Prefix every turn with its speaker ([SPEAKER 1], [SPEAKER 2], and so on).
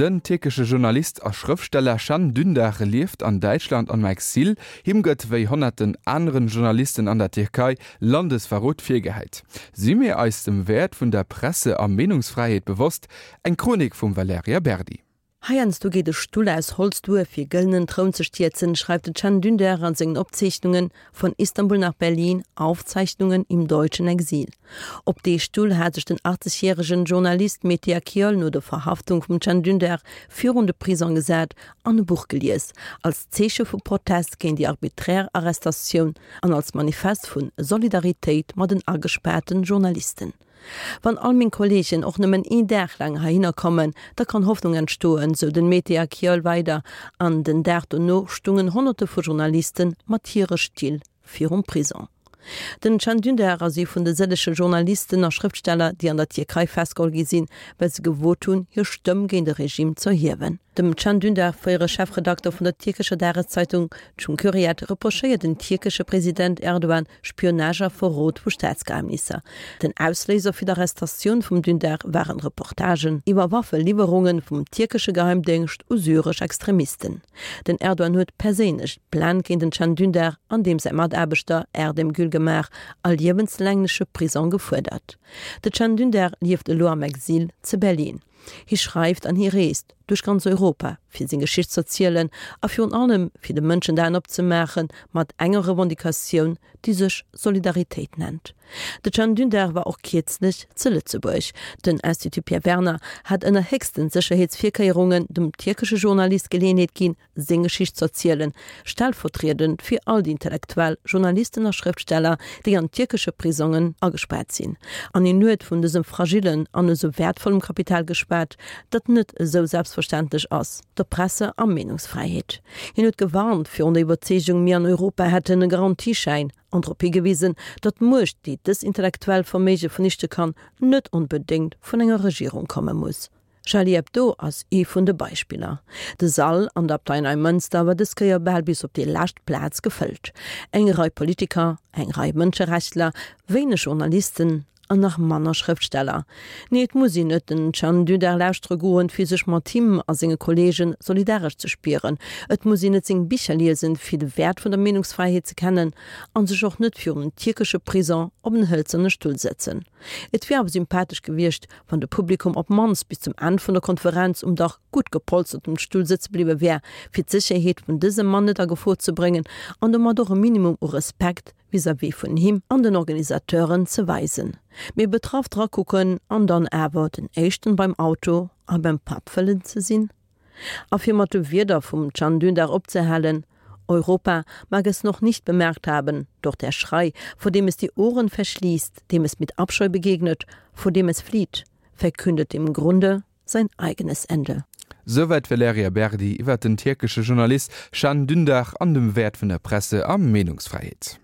[SPEAKER 1] Den tierkesche Journalist a Schrëftsteller Can Dündar lieft an Däitschland am Exil. Him gëtt, wéi honnerten aneren Journalisten an der Tierkei, Landesverrot virgehäit. Si mir eis dem Wäert vun der Presse a Meenungsfräiheet bewosst? Eng Chronik vum Valerija Berdi.
[SPEAKER 2] Heiansdo geet e Stull aus Holz duer, fir gëllenen Troun ze stierzen, schreift de Can Dündar an sengen Opzeechnungen Von Istanbul nach Berlin, Aufzeichnungen im deutschen Exil. Op dee Stull hat sech den 80 järegen Journalist Mete Akyol no der Verhaftung vum Can Dündar virun de Prisong gesat an e Buch gelies, als Zeeche vu Protest géint déi arbiträr Arrestatioun an als Manifest vu Solidaritéit mat den agespaarten Journalisten. Wann all meng Kolleegen och nëmmen een Dag laang heihinner kommen, da kann Hoffnung entstoen, sou den Mete Akyol weider. An den Dag dono stungen Honnerte vu Journaliste mat hire Still virum Prison. Den Can Dündar ass ee vun de sëllege Journalisten a Schrëftsteller, déi an der Tierkei festgeholl gi sinn, well se gewot hunn, hir Stëmm géint e Regime z'erhiewen. Dem Can Dündar, fréiere Chefredakter vun der tierkescher Dageszeitung Cumhuriyet, reprochéiert den tierkesche President Erdogan Spionage a Verrot vu Staatsgeheimnisser. Den Ausléiser fir d'Arrestatioun vum Dündar waren Reportagen iwwer Waffeliwwerunge vum tierkesche Geheimdéngscht u syresch Extremisten. Den Erdogan huet perséinlech d'Plainte géint den Can Dündar an deem säi Mataarbechter Erdem Gül gemaach a liewenslängleche Prisong gefuerdert. De Can Dündar lieft elo am Exil ze Berlin. Hie schreift an hie reest duerch ganz Europa, fir seng Geschicht z'erzielen a virun allem fir de Mënschen d'Aen opzemaache mat enger Revendicatioun, déi sech Solidaritéit nennt. De Can Dündar war och kierzlech ze Lëtzebuerg. Den Institut Pierre Werner hat ënner héchsten Sécherheetsvirkéierungen dem tierkesche Journalist Geleeënheet ginn, seng Geschicht z'erzielen, stellvertriedend fir all déi Intellektuell, Journalisten a Schrëftsteller, déi an tierkesche Prisongen agespaart sinn. An hien huet vun dësem fragillen an esou wäertvollem Kapital geschwat, dat net esou selbstverständlech ass, der Presse a Meenungsfräiheet. Hien huet gewarnt virun der Iwwerzeegung, mir an Europa hätten e Garantieschäin, an drop higewisen, datt d'Muecht, déi dës intellektuell Verméige vernichte kann, net onbedéngt vun enger Regierung komme muss. Charlie Hebdo ass ee vun de Beispiller. De Sall an der Abtei Neimënster war dës Kéier bal bis op déi lescht Plaz gefëllt. Eng Rei Politiker, eng Rei Mënscherechtler, wéineg Journalisten an nach manner Schrëftsteller. Nee, et muss een net den Can Dündar lauschtere goen, fir sech mat him a senge Kolleege solidaresch ze spieren. Et muss een net seng Bicher liesen, fir de Wäert vun der Meenungsfräiheet ze kennen a sech och net virun en tierkesche Prison op en hëlzerne Stull sëtzen. Et wier awer sympathesch gewiescht, wann de Publikum op mannst bis zum Enn vun der Konferenz um dach gutt gepolstertem Stull sëtze bliwwe wär, fir d'Sécherheet vun dësem Mann net a Gefor ze bréngen an domat och e Minimum u Respekt vis-à-vis vun him an den Organisateuren ze weisen. Mee betraff drakucken an dann awer den éischten beim Auto a beim Patt wëllen ze sinn? A fir mat de Wierder vum Can Dündar opzehalen, Europa mag es noch nicht bemerkt haben, doch der Schrei, vor dem es die Ohren verschließt, dem es mit Abscheu begegnet, vor dem es flieht, verkündet im Grunde sein eigenes Ende.
[SPEAKER 1] Souwäit d'Valerija Berdi iwwer den tierkesche Journalist Can Dündar an dem Wäert vun der Presse a Meenungsfräiheet.